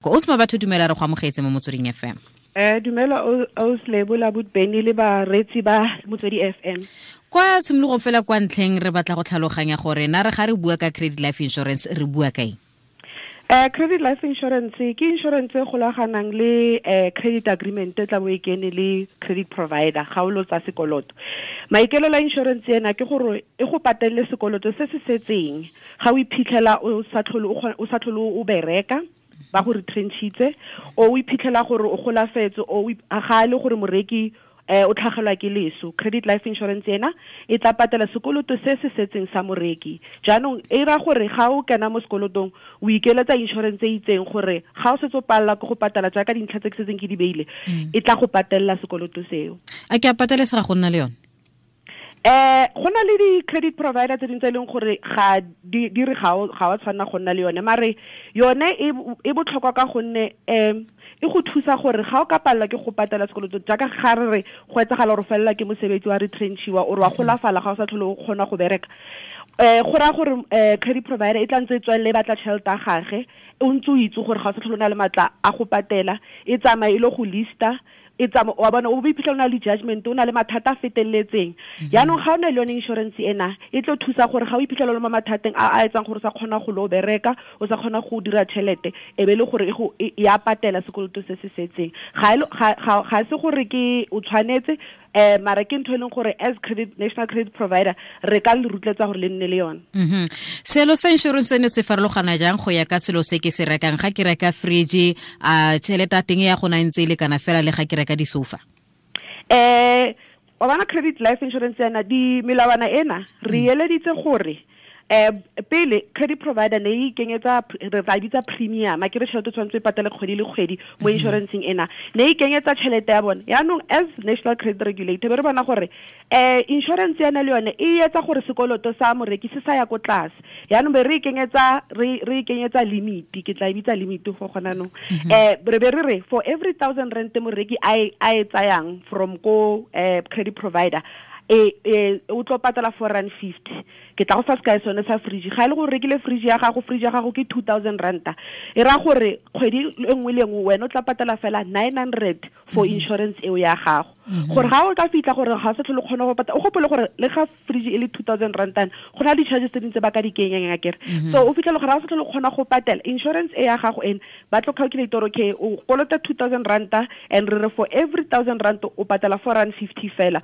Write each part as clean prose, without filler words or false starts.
O se batho, dumela, re go amogetse mo Motsweding FM. Dumela o la Beni le bareetsi ba Motswedi FM. Kwa tshimologong fela, kwa ntlheng, re batla go tlhaloganya gore na re ga re bua ka credit life insurance, re bua ka eng? Credit life insurance ke insurance e golaganang le credit agreement e tla bo e kene le credit provider ga o lo tsa sekoloto. Maikaelelo a insurance ena ke gore e go patelele sekoloto se se setseng ga o iphitlhela o sa tlhole o bereka, ba go retrenchitse, o iphitlhela gore o golafetse, o ga e le gore moreki o tlhagelwa ke leso. Credit life insurance ena e tla patela sekoloto se se setseng sa moreki. Jaanong e ra gore ga o kena mo sekolotong, o ikeletsa insurance e itseng gore ga o setse o palela ke go patela jaaka dintlha tse ke setseng ke di beile, e tla go patelela sekoloto seo. A ke a patelesega go nna le yone? Go na le di-credit provider tse dingwe tse e leng gore ga di re ga wa tshwanela go nna le yone, mare yone e botlhokwa ka gonne e go thusa gore ga o ka palelwa ke go patela sekoloto, jaaka ga re re go etsagala gore o felela ke mosebetsi, wa retrenchiwa, ore wa golafala, ga o sa tlhole o kgona go bereka, go raya gore credit provider e tla ntse e tswelele e batla tšhelete ya gage, o ntse o itse gore ga o sa tlhole o na le maatla a go patela. E tsamaye e le go lista, e tsama wa bona, o bo iphitlhela o na le judgment, o na le mathata a feteletseng. Yaanong ga o na le yone insurance ena, e tlo thusa gore ga o iphitlhela o le mo mathateng a a etsang gore o sa kgona go lo bereka, o sa kgona go dira tšhelete, e be le gore e ya patela sekoloto se se setseng. Ga se gore ke o tshwanetse, mara ke ntho e leng gore as credit national credit provider re ka le rotloetsa gore le nne le yone. Selo sa insurance seno se farologana jang go ya ka selo se ke se rekang? Ga ke reka fridge, a tšhelete ya teng ya gona e ntse e lekana fela le ga ke reka disofa? Wa bona, credit life insurance ena, di melawana ena re eleditse gore pele credit provider ne e ikenyetsa, re tla bitsa premium, a ke re tšhelete tshwanetse e patele kgwedi le kgwedi mo insuranceng ena, ne e ikenyetsa tšhelete ya bone. Yaanong as national credit regulator be re bona gore insurance ena le yone e etsa gore sekoloto sa moreki se sa ya ko tlase. Yaanong be re ikenyetsa limit, ke tla e bitsa limit go gona nong. Re be re re for every 1000 rand moreki a e tsayang from ko credit provider, e o tlo patela 4 rand 50. Ke tla go fa sekai sone sa fridge. Ga e le gore rekile fridge ya gago, fridge ya gago ke 2000 ranta, e raya gore kgwedi e nngwe le nngwe wena o tla patela fela 900 for insurance eo ya gago, gore ga o ka fitlha gore ga o sa tlhole kgona go patela. O gopole gore le ga fridge e le 2000 rantana, go na le di-charges tse dingwe tse ba ka di kenyang, akere? So o fitlhele gore ga o sa tlhole kgona go patela insurance e ya gago ene, ba tlo calculate gore okay, o kolota 2000 ranta, and re re for every 1000 rand o patela 4 rand 50 fela,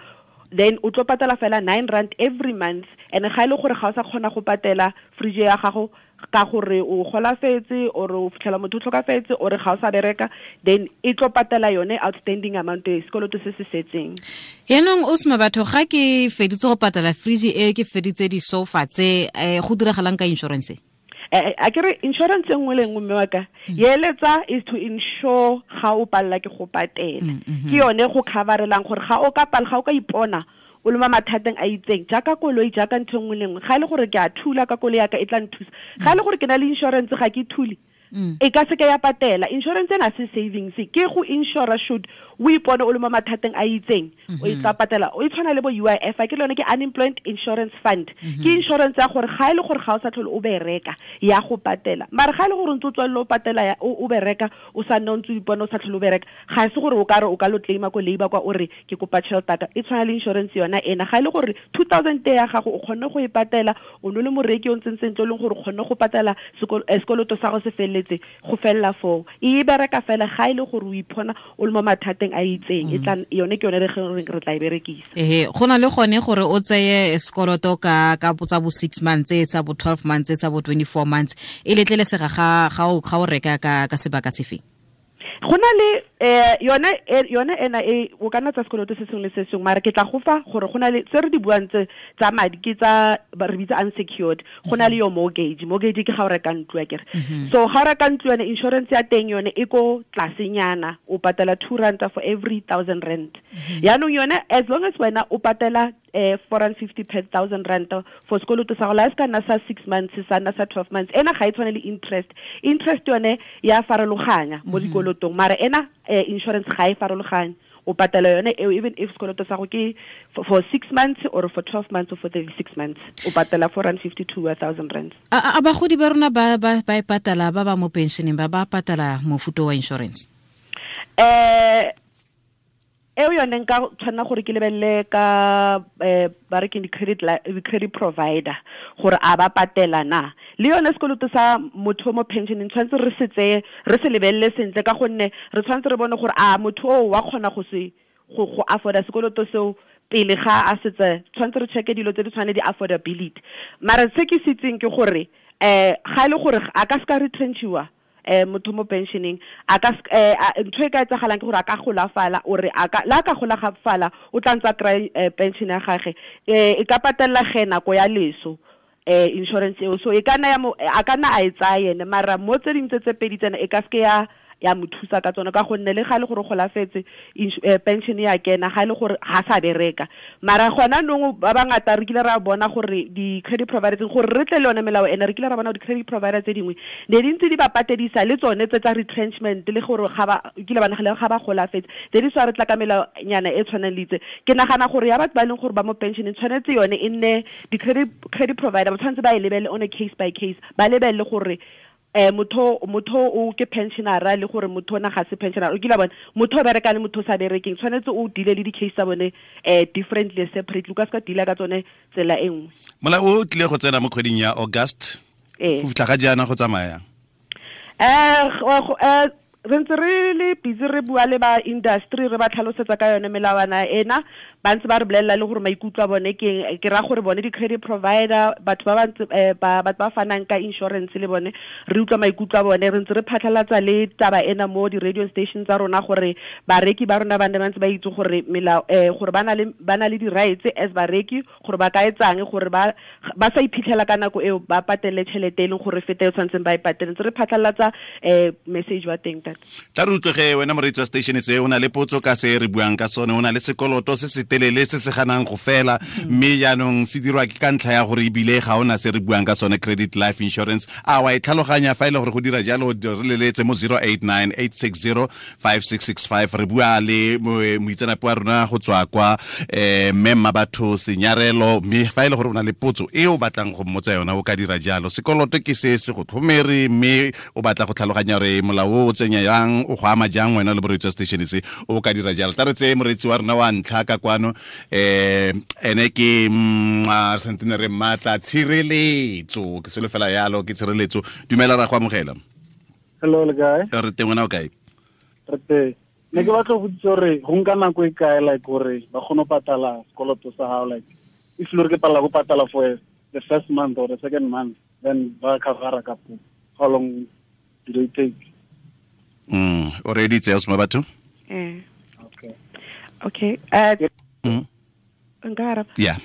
then o tlo patela fela 9 rand every month. And ga e le gore ga o sa kgona go patela fridge ya gago ka gore o golafetse, or o fitlhela motho o tlhokafetse, or ga o sa bereka, then e tlo patela yone outstanding amount e sekoloto se se setseng. Yaanong o sema batho, ga ke feditse go patela fridge e, ke feditse di-sofa tse, go diragalang ka insurance? A ke re insurance e nngwe le nngwe, mme wa ka, eletsa is to insure ga o palela ke go patela. Ke yone go coverelang gore ga o ka pala, ga o ka ipona o le mo mathateng a itseng, jaaka koloi, jaaka ntho e nngwe le nngwe. Ga e le gore ke a thula ka koloi yaka, e tla nthusa. Ga e le gore ke na le insurance, ga ke thule, e ka seke ya patela. Insurance ena se savings, ke go insure should o ipone o le mo mathateng a itseng, o e tla patela. O e tshwana le bo UIF, a ke le yone, ke Unemployment Insurance Fund. Ke insurance ya gore ga e le gore ga o sa tlhole o bereka, ya go patela. Mare ga e le gore o ntse o tswelele o patela, o bereka, o sa nne o ntse o ipone o sa tlhole o bereka, ga e se gore o ka re o ka lo claima ko labour kwa, o re ke kopa tšhelete ka. E tshwana le insurance yona ena. Ga e le gore 2000 ya gago o kgonne go e patela, o ne le moreki o ntseng sentle, o leng gore o kgonne go patela sekoloto sa go se feleletse, go felela foo. E bereka fela ga e le gore o iphona o le mo mathateng a itseng. E tla yone, ke yone re reng re tla e berekisa. Ehe, go na le gone gore o tseye sekoloto ka tsa bo 6 months, sa bo 12 months, sa bo 24 months. E letlelesega ga o reka ka sebaka sefeng? Go na le yone ena e o ka nna tsa sekoloto se sengwe le se sengwe, mara ke tla go fa gore go na le tse re di buang tse tsa madi, ke tsa re bitsa unsecured. Go na le yo mortgage. Mortgage ke ga o reka ntlo, akere? So ga o reka ntlo, yone insurance ya teng yone e ko tlasenyana, o patela 2 ranta for every 1000 rand. Yaanong yone, as long as wena o patela 450 per 1000 rand for sekoloto sa go, la se ka nna sa 6 months, sa nna sa 12 months. Ena ga e tshwane le interest. Interest yone ya farologanya mo dikolotong, mara ena insurance ga e farologanye. O O patela yone eo even if sekoloto sa go ke for 6 months or for 12 months or for 36 months, o patela 452,000 rands. A bagodi ba rona ba e patala ba ba mo pensioneng ba patala mofuta wa insurance? Eo yone nka tshwanela gore ke lebelele ka ba re ke di-credit provider gore a ba patela na. Le yone sekoloto sa motho mo pensioneng tshwanetse re se tseye, re se lebelele sentle, ka gonne re tshwanetse re bone gore a motho o wa kgona go se go afforda sekoloto seo pele ga a setse. Tshwanetse re checke dilo tse di tshwane di-affordability. Mara se ke se itseng ke gore ga e le gore a ka seka retrenchiwa motho mo pensioneng, a ka ntho e ka etsagalang ke gore a ka golafala, ore a ka la ka golafala o tla ntse a kry pension ya gagwe, e ka patella ge nako ya leso insurance eo. So e ka nna a ka nna a e tsaya ene, mara mo tse dingwe tse pedi tsena e ka seke ya mo thusa ka tsone, ka gonne le ga le gore golafetse pension ya kena, ga le gore ga sa bereka. Mara gona nong ba bangata re kile ra bona gore di-credit providers, gore re tle le yone melao ene, re kile ra bona di-credit providers tse dingwe ne di ntse di ba patedisa le tsone tse tsa retrenchment, le gore ga ba kile ba nagale ga ba golafetse, tse di swa re tla ka melaonyana e tshwanang le itse. Ke nagana gore ya batho ba e leng gore ba mo pensioneng tshwanetse yone e nne di-credit provider ba tshwanetse ba e lebelele on a case by case, ba lebelele gore motho o ke pensionera le gore motho ona ga se pensionera. O kile bona motho o bereka le motho o sa berekeng, tshwanetse o deal le di-case tsa bone differently, separately. O ka seka deala ka tsone tsela e nngwe. Molao o tlile go tsena mo kgweding ya August, go fitlha ga jaana go tsamaya re ntse re le busy re bua le ba industry, re ba tlhalosetsa ka yone melawana ena, ba ntse ba re bolelela le gore maikutlo a bone ke ra gore bone di-credit provider, batho ba ba batho ba fanang ka insurance le bone re utlwa maikutlo a bone. Re ntse re phatlhalatsa le taba ena mo di-radio station tsa rona gore bareki ba rona ba nne ba ntse ba itse gore melao gore ba na le di-rights as bareki, gore ba ka etsang gore ba sa iphitlhela ka nako eo ba patele tšhelete e leng gore fete e tshwanetseng ba e patele. Ntse re phatlhalatsa message wa teng. Tla re utlwege wena moreetsi wa station se, o na le potso ka se re buang ka sone, o na le sekoloto se se telele se se ganang go fela, mme jaanong se dirwa ke ka ntlha ya gore ebile ga ona se re buang ka sone, credit life insurance. A wa e tlhaloganya fa e le gore go dira jalo, re leletse mo 089 860 5665. Re bua le moitseanape wa rona go tswa kwa mme Mmabatho Senyarelo, mme fa e le gore o na le potso e o batlang go mmotsa yona o ka dira jalo. Sekoloto ke se se go tlhomere, mme o batla go tlhaloganya gore molao o tsenya yang, o go ama jang wena le moreetsi wa station se, o ka dira jalo. Tla re tseye moreetsi wa rona wa ntlha ka kwano, ene ke santse re mmatla Tshireletso, ke selo fela yalo, ke Tshireletso. Dumela, ra go amogela. Hello, le kae? Re teng, wena o kae? Re teng. Ne ke batla go botsa gore go nka nako e kae like gore ba kgone go patala sekoloto sa gago, like if le gore ke palela go patala for the first month or the second month, then ba covera ka po, how long do they take? O reeditse ya Mmabatho? Okay. Nka araba? Yeah.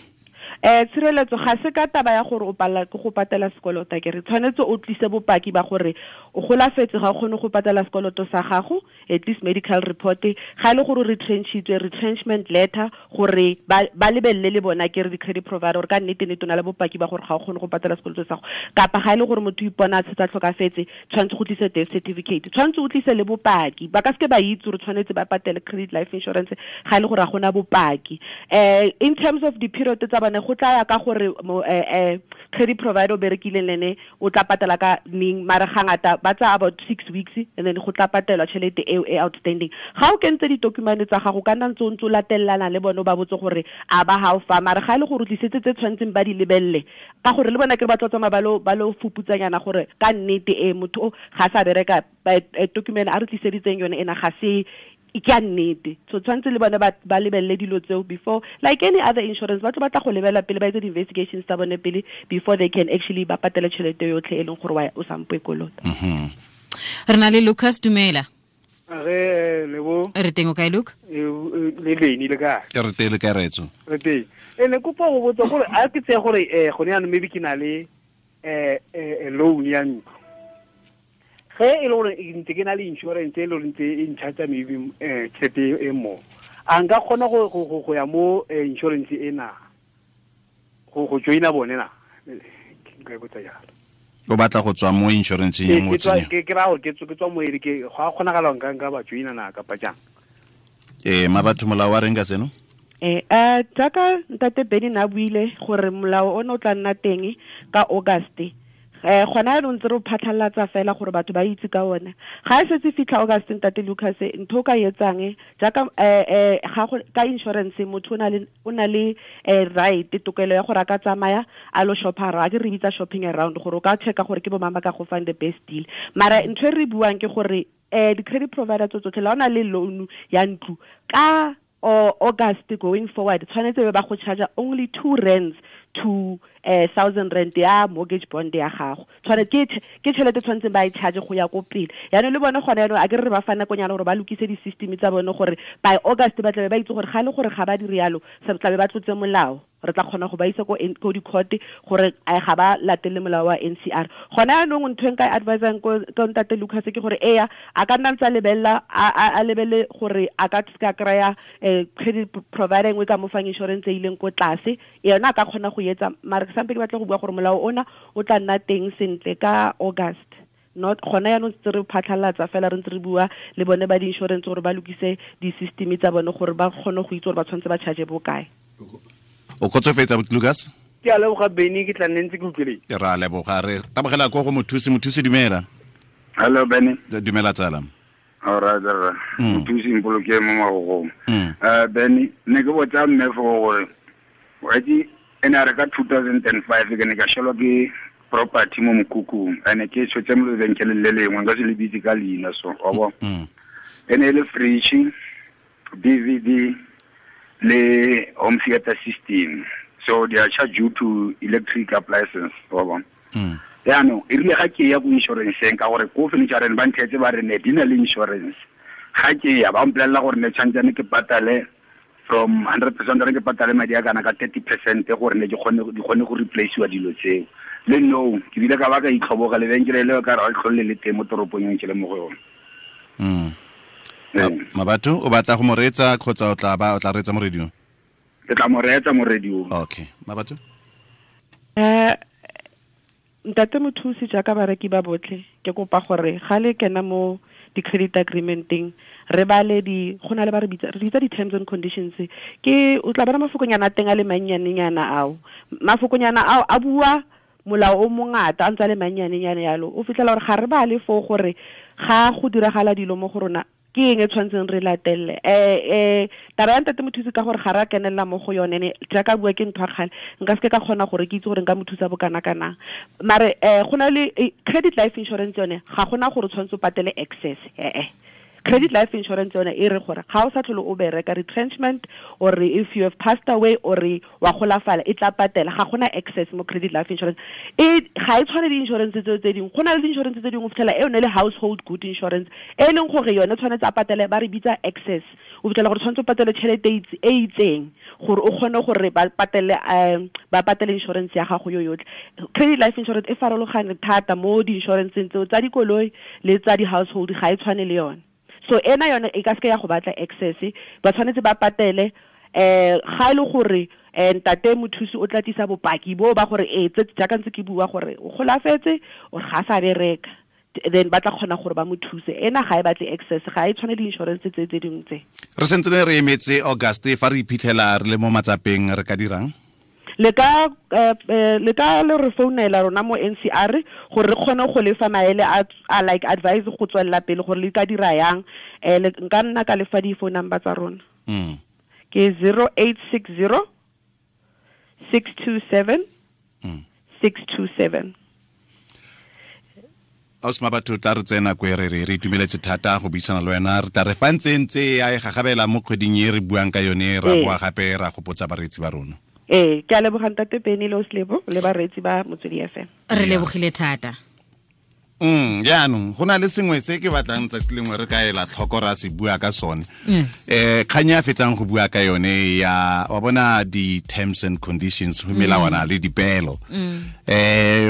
Tshireletso ga se ka taba ya gore o palela ke go patela sekoloto, ke re tshwanetse o tlise bopaki ba gore o golafetse, ga o kgone go patela sekoloto sa gago, at least medical report, ga e le gore o retrenchitswe, retrenchment letter, gore ba lebelele le bona ke re di-credit provider gore ka nnete nnete o na le bopaki ba gore ga o kgone go patela sekoloto sa gago. Kapa ga e le gore motho o ipona a setse a tlhokafetse, tshwanetse go tlise death certificate, tshwanetse o tlise le bopaki. Ba ka seke ba itse gore tshwanetse ba patele credit life insurance ga e le gore ga gona bopaki. In terms of di-period tsa bone, go tla ya ka gore credit provider o berekileng le ene o tla patela ka neng, mara ga ngata ba tsaya about 6 weeks and then go tla patelwa tšhelete eo e outstanding. Ga o kentse ditokumane tsa gago, ka nna ntse o ntse o latelelana le bone, o ba botse gore a ba ga o fa, mara ga e le gore o tlisetse tse tshwanetseng ba di lebelele, ka gore le bona ke re ba tlo tsamaya ba lo fuputsanyana gore ka nnete e motho o ga sa bereka, document a re tliseditseng yone ena ga se ke a nnete. So tshwanetse le bone ba lebelele dilo tseo before, like any other insurance, ba tlo batla go lebela pele, ba etse di-investigations tsa bone pele before they can actually ba patele tšhelete yotlhe e leng gore o sampo e kolota. Re na le Lucas, dumela. Re lebo. Re teng, o kae Luke? Le leni le kae? Re teng, le kae retso? Re teng. Ne kopa go botsa gore a ke tseye gore gone jaanong maybe ke na le loan ya ntlo. Ge e le gore ntse ke na le insurance e le gore ntse e ncharge maybe tšhelete e mo, a nka kgona go ya mo insurance ena go joina bone na? Nka e botsa jalo. O batla go tswa mo insurance e mo tsenya? Ke ra gore ke tswa mo e ke go a kgonagala nka ba joina na kapa jang? Mabatho molao wa reng ka seno? Jaaka ntate Benny na buile gore molao o ne o tla nna teng ka August. Gona jaanong ntse re phatlhalatsa fela gore batho ba itse ka ona. Ga e setse fitlha August ntate Lucas, ntho o ka etsang jaaka ga go ka insurance motho o na le right tokelo ya gore a ka tsamaya a lo shoppa, a ke re bitsa shopping around gore o ka checka gore ke bo mang ba ka go fang the best deal. Mara ntho e re buang ke gore di-credit provider tso tsotlhe la o na le loan ya ntlo ka August going forward tshwanetse ba go charge only 2 rands to 1,000 rand ya mortgage bond ya gago. Tshwanetse ke tšhelete tshwanetseng ba e charge go ya ko pele. Yaanong le bone gone yaanong a ke re ba fa nakonyana gore ba lokise di-system tsa bone gore by August ba tlabe ba itse gore ga le gore ga ba dire yalo se tlabe ba tlotse molao. Re tla kgona go ba isa ko di-court gore ga ba latele molao wa NCR. Gona yaanong ntho e nka e advisang ko ntate Lucas ke gore eya a ka nna ntse a lebelela a lebele gore a ka se ka kry-a credit provider engwe ka mo fang insurance e ileng ko tlase, yona a ka kgona go etsa. Mara ke sampe ke batla go bua gore molao ona o tla nna teng sentle ka August. Not gona yaanong ntse re phatlhalatsa fela re ntse re bua le bone ba di-insurance gore ba lokise di-system tsa bone gore ba kgone go itse gore ba tshwanetse ba charge bokae. O kgotsofetse Lucas? Ke a leboga Benny, ke tla nne ntse ke utlwile. Ke ra leboga, re tabogela ko go mothusi. Mothusi dumela. Hello Benny. Dumela tsala. All right, mothusi mpoloke mo magogong. Benny, ne ke botsa mme fo gore wa itse ene a re ka 2005 ke ne ka shelwa ke property mo mokhukhung, ene ke tshotse mo lebenkeleng le lengwe nka se le bitse ka leina so wa bona. Ene e le fridge, DVD le home theater system, so they are charged due to electric appliances wa bona. Yaanong e rile ga ke ya ko insurance-eng ka gore ko furniture ba nthetse ba re ne di na le insurance, ga ke ya ba mpolelela gore ne tshwantsane ke patale from 100% re ke patale madi a kana ka 30% gore ne di kgone go replace-iwa dilo tseo. Le no ke bile ka ba ka itlhoboga lebenkele leo ka re ga tlhole le teng mo toropong e ke le mo go yone. Mabatho o batla go mo reetsa kgotsa o tla reetsa mo radio? Ke tla mo reetsa mo radio. Okay, Mabatho. Ntate mothusi jaaka bareki ba botlhe ke kopa gore ga le kena mo di-credit agreement-eng re bale di go na le ba re bitsa di-terms and conditions. Ke o tla bona mafokonyana a teng a le mannyanenyana ao. Mafokonyana ao a bua molao o mongata a ntse a le mannyanenyana yalo. O fitlhela gore ga re bale foo gore ga go diragala dilo mo go rona ke eng e tshwanetseng re latelle. Taba ya ntate mothusi ka gore ga re a kenelela mo go yone ne jaaka bua ke ntho ya kgale nka seke ka kgona gore ke itse gore nka mo thusa bokana-kanang. Mare go na le credit life insurance yone ga gona gore o tshwanetse o patele excess. Credit life insurance yone e re gore ga o sa tlhole o bereka retrenchment or if you have passed away or wa golafala e tla patela, ga gona excess mo credit life insurance. E ga e tshwane le insurance tseo tse dingwe. Go na le di-insurance tse dingwe o fitlhela e yone le household good insurance e leng gore yone tshwanetse a patele, ba re bitsa excess. O fitlhela gore tshwanetse o patele tšhelete e itseng gore o kgone gore ba patele insurance ya gago yo yotlhe. Credit life insurance e farologane thata mo di-insuranceng tseo tsa dikoloi le tsa di-household, ga e tshwane le yone. So ena yone e ka seke ya go batla excess, ba tshwanetse ba patele ga e le gore ntate mothusi o tla tlisa bopaki bo ba gore tse jaaka ntse ke bua gore o golafetse or ga sa bereka, then ba tla kgona gore ba mo thuse. Ena ga e batle excess, ga e tshwane le insurance tse tse dingwe tse. Re sentse re emetse August fa re iphitlhela re le mo matsapeng re ka dirang? Le ka le re founela rona mo NCR gore re kgone go lefa maele a like advice go tswelela pele gore le ka dira yang. Nka nna ka lefa di-phone number tsa rona. Ke 0860 627 627. Ausi Mabatho, tla re tsena ko re re itumeletse thata go buisana le wena. Re tla re fa ntse ntse ya e gagabela mo kgweding e re buang ka yone, ra boa gape ra gopotsa bareetsi ba rona. Ke a leboga ntate Benny le Oslebo le bareetsi ba Motswedi FM. Re lebogile thata. Jaanong go na le sengwe se ke batlang tsatsi lengwe re ka ela tlhoko ra se bua ka sone. Kgang ya fetsang go bua ka yone ya wa bona di-terms and conditions go melawana le dipeelo.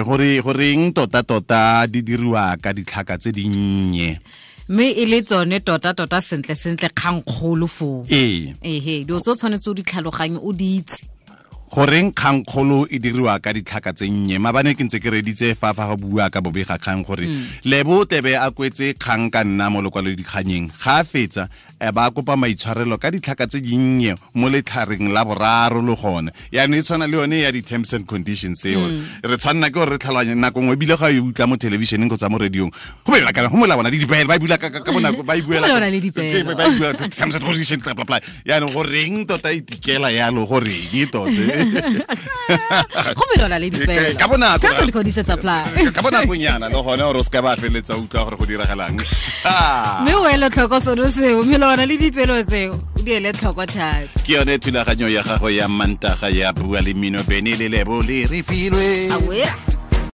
Gore goreng tota di diriwa ka ditlhaka tse dinnye, mme e le tsone tota sentle sentle kgang kgolo foo. Ehe, dilo tse o tshwanetse o di tlhaloganye o di itse. Goreng kgangkgolo e diriwa ka ditlhaka tse nnye? Mabane ke ntse ke reditse fa go bua ka bobega kgang gore Lebo tebe a kwetse kgang ka nna mo lokwalodikganyeng, ga a fetsa ba kopa maitshwarelo ka ditlhaka tse dinnye mo letlhareng la boraro le gone. Yaanong e tshwana le yone ya di-terms and conditions eo, re tshwanna ke gore re tlhaloganye nako nngwe, ebile ga e utlwa mo thelebišeneng kgotsa mo radiong, go be kana go molawana le dipeelo, ba e bula ka bonako, ba e buela Go melawana le dipeelo. Ba e bua terms and conditions, bla bla bla. Yaanong goreng tota e tikela yalo, goreng tota? Go melawana le dipeelo. Ka bonako. Terms and conditions apply. Ka bonakonyana le gone, gore o se ka ba feleletsa utlwa gore go diragalang. Mme o ele tlhoko sone seo, melawana le dipeelo tseo, o di ele tlhoko thata. Ke yone thulaganyo ya gago ya Mantaga ya Bua le Mmino, Bene le Lebo le re filwe. Awe.